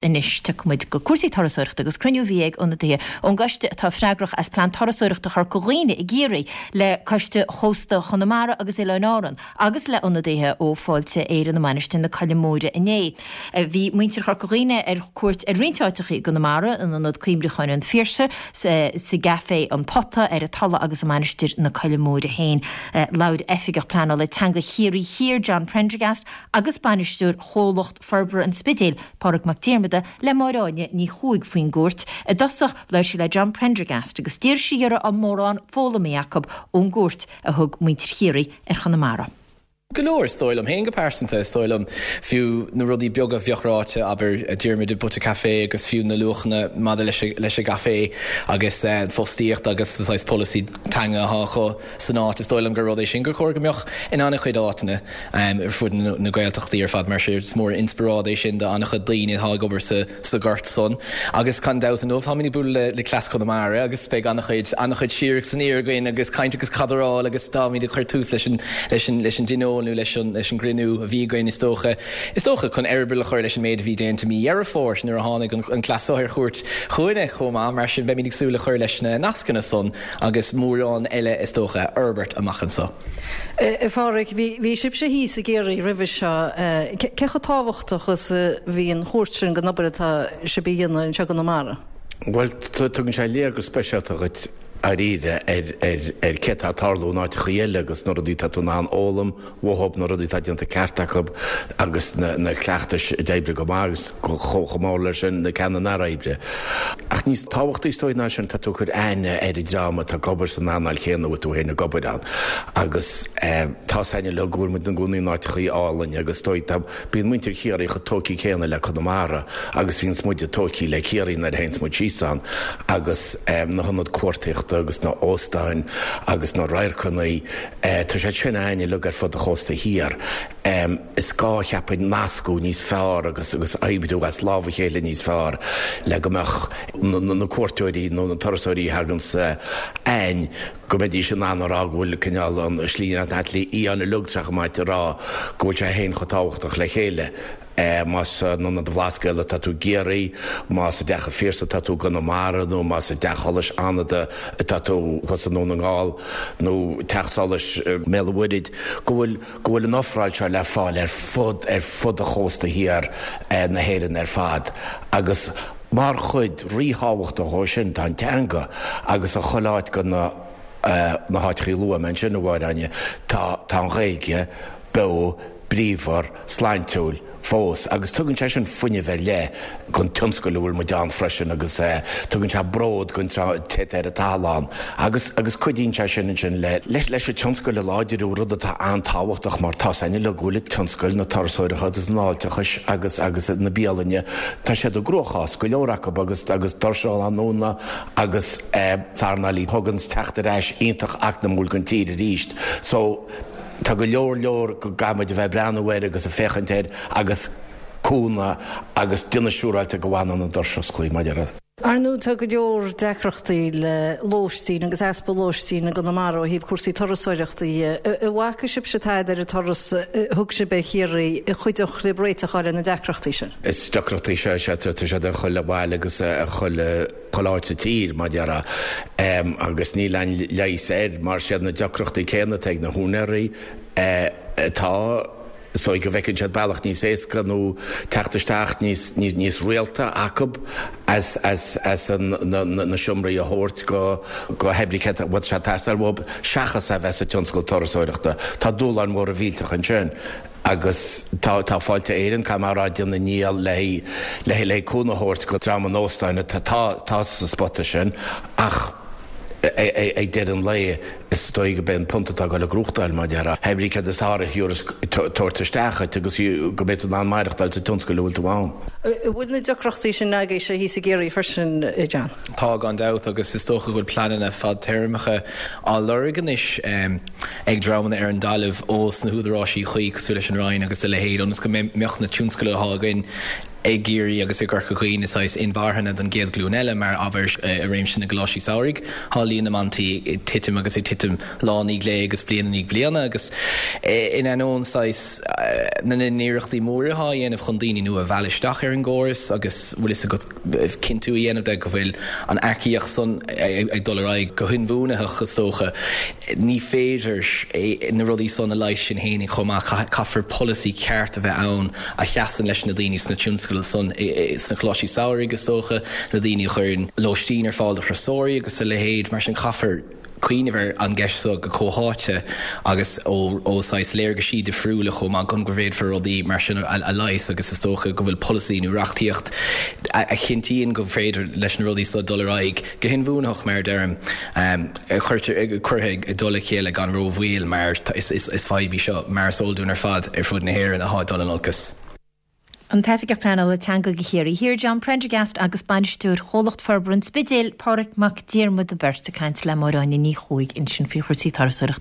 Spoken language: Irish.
Anois tiocfaidh muid go cúrsaí turasóireachta agus cruinniú a bhí ag ionadaithe ón gcoiste atá freagrach as Plean Turasóireachta Chorca Dhuibhne i gCiarraí le Coiste Chósta Chonamara agus Oileáin Árann agus le ionadaithe ó Fáilte Éireann i Mainistir na Coille Móire inné. Bhí muintir Chorca Dhuibhne ar cuairt ar roinnt áiteachaí i gConamara, in Ionad Cuimhneacháin an Phiarsaigh, sa gCaifé An Pota, ar an Tulaigh agus i Mainistir na Coille Móire féin. Labhair Oifigeach Pleanála Teanga Chiarraí Thiar, John Prendergast agus Bainisteoir Chomhlacht Forbartha an Spidéil, Pádraig Mac Diarmada, le Máire Áine Ní Chuaig faoin gcuairt. I dtosach, labhair sí le John Prendergast agus d'iarr sí air an raibh mórán foghlamtha acu ón gcuairt a thug muintir Chiarraí ar Chonamara. Go leor, is dóigh liom féin go pearsanta. Is dóigh liom fiú na rudaí beaga a bheadh ráite, abair, Diarmuid i bPota Café agus fiú na luachanna maidir leis an gcaifé agus an fostaíocht agus an saghas polasaí teanga atá acu san áit. Is dóigh liom gur rud é sin gur chóir go mbeadh in an-chuid áiteanna. ar fud na Gaeltachtaí ar fad mar sin is mór an inspioráid é sin do an-chuid daoine atá ag obair sa ghort san. Agus gan dabht inniu táimid ag bualadh le Cleas Chonamara agus beidh an-chuid an-chuid siar agus aniar againn agus caint agus cadráil agus táimid ag cur tús leis an leis an leis an dtionól nó leis an leis an gcruinniú a bhí againn is dócha is dócha chun eireaball a chur leis an méid a bhí déanta mí Dheireadh Fómhair nuair a tháinig an an cleas seo ar chuairt chugainne chomh maith mar sin beimid ag súil le cur leis na nascanna san agus mórán eile is dócha a fhorbairt amach anso. A Phádraig, bhí sibhse thíos i gCiarraí roimhe seo. Cé chomh tábhachtach is a bhí an chuairt sin don obair atá sibh a dhéanamh anseo i gConamara? Bhuel, tugann sé léargas speisialta dhuit dáiríre ar cé atá ag tarlú in áiteachaí eile agus na rudaí atá tú in ann fhoghlaim uathub, na rudaí atá déanta ceart acu agus na cleachtais a d'oibrigh go maith agus chomh mór leis sin na ceanna nár oibrigh. Ach níos tábhachtaí is dóigh ná sin, tá tú ag cur aithne ar an dream atá ag obair san earnáil chéanna a bhfuil tú féin ag obair ann. Agus tá 's againn uilig go bhfuil muid ina gcónaí in áiteachaí álainn agus is dóigh tá, bíonn muintir Chiarraí chomh tógtha céanna le Conamara agus bhíonns muide tógtha le Ciarraí nuair a théanns muid síos ann agus na hionaid cuartaíochta agus na óstáin agus na radharcanna, tá siad sin againn uilig ar fud an chósta thiar. Is gá, cheapfainn, nascadh níos fearr agus agus oibriú as lámh a chéile níos fearr le go mbeadh na cuairteoirí nó na turasóirí a thaganns againn, go mbeidís in ann a rá go bhfuil cineál an slí fhiáin uilig tá sé chomh maith a rá go bhfuil sé féin chomh tábhachtach le chéile. Más in Ionad an Bhlascaoid atá tú i gCiarraí, más i dTeach an Phiarsaigh atá tú i gConamara nó más i dTeach Solais Fhánada atá tú thuas i nDún na nGall nó Teach Solais i mBéal an Mhuirthead, go bhfuil go bhfuil an ofráil seo le fáil ar fud ar fud an chósta thiar na hÉireann ar fad agus mar chuid ríthábhachtach dhó sin tá an teanga agus i chuile áit de na na háiteachaí a luaigh mé ansin, a Mháire Áine, tá tá an Ghaeilge beo bríomhar, sláintiúil fós agus tugann sé sin fuinneamh ar leith don tionscal a bhfuil muid ann freisin agus tugann sé bród don té atá ar an tadhall ann agus agus cuidíonn sé sin ansin le leis leis an tionscal a láidriú, rud atá an-tábhachtach mar tá 's againn uilig go bhfuil tionscail na turasóireachta agus an fháilteachais agus agus na bialainne, tá siad i gcruachás, go leor acu agus agus doirse á ndúnadh agus earnáil a thuganns teacht ar ais iontach eacnamúil don tír arís so. Tá go leor leor go gcaithfimid a bheith ag breathnú air agus ag féachaint air agus cúnamh agus déanamh siúráilte go bhfanann an doras osclaí, mar a déarfá. Ar ndóigh tá go leor deacrachtaí le lóistín agus easpa lóistín i gConamara ó thaobh cúrsaí turasóireachta dhe. An bhfaca sibhse tada ar an turas a thug sibh ar Chiarraí a chuideodh libh réiteach a fháil ar na deacrachtaí sin? Is deacrachtaí sea, sea, tá siad ar chuile bhaile agus ar chuile. chuile áit sa tír, mar a déarfá, agus níl aon leigheas air mar siad na deacrachtaí céanna atá ag na húinéirí atá, is dóigh go bhfeiceann siad bealach níos éasca nó teacht isteach níos, níos rialta acu as, as, as an, na, na seomraí a thabhairt go, go hoibrí cé a bhfuil sé ag teastáil uathu seachas a bheith sa tionscal turasóireachta. Tá dúshláin mhóra mhillteacha ansin. Agus tá, tá Fáilte Éireann, caithfidh mé a rá, ag déanamh a ndícheall le, le, le cúnamh a thabhairt go dream an óstáin atá, tá sa spota sin ach ag deireadh an lae is dóigh go b'é an punt atá ag dul ag gnóthachtáil, mar a déarfá. Hé brí céard is fearr a thiúrfas tabhairt isteach dhuit agus go mbeidh tú in ann maireachtáil sa tionscal a bhfuil tú ann. An bhfuil na deacrachtaí sin agaibhse thíos i gCiarraí freisin, a John? Tá, gan dabht, agus is dócha go bhfuil pleananna fadtéarmacha á lorg anois. ag dreamanna ar an dtalamh ós na húdaráisí cuí cosúil leis an Roinn agus a leithéid ionas go mbeadh na tionscail atá againn. I gCiarraí agus i gCorca Dhuibhne saghas inmharthana don gcéad ghlúin eile mar abair i réimse na gcoláistí samhraidh tá líon na mbantaí ag titim agus ag titim lá i ndiaidh lae agus bliain i ndiaidh bliana agus in ainneoin saghas na n-iarrachtaí móra atá á dhéanamh chun daoine nua a mhealladh isteach ar an gcóras agus bhfuil fhios agat cinntiú a dhéanamh de go bhfuil an earcaíocht san ag dul ar aghaidh go hinbhuanaitheach is dócha. Ní féidir na rudaí san a leigheas sin fhéinig chomh maith. Caithfear polasaí ceart a bheith ann a sheasann leis na daoine sna tionscail san, sna coláistí samhraidh is dócha, na daoine a chuireann lóistín ar fáil do thurasóirí agus a leithéid. Mar sin caithfear cuimhneamh ar an gceist seo go comhtháite agus ó saghas léargaisí difriúla chomh maith chun go bhféadfar rudaí mar sin a leigheas agus is dócha go bhfuil polasaí nó reachtaíocht a chinntíonn go féidir leis na rudaí seo dul ar aghaidh go hinbhuanaitheach mar a deirim cuirtear curtha i dtoll a chéile gan rómhoill mar is fadhb í seo mar is eol dúinn ar fad ar fud na hÉireann atá ag dul in olcas. An tOifigeach Pleanála Teanga do Chiarraí Thiar, John Prendergast agus Bainisteoir Chomhlacht Forbartha an Spidéil, Pádraig Mac Diarmada beirt ag caint le Máire Áine Ní Chuaig ansin faoi chúrsaí turasóireachta.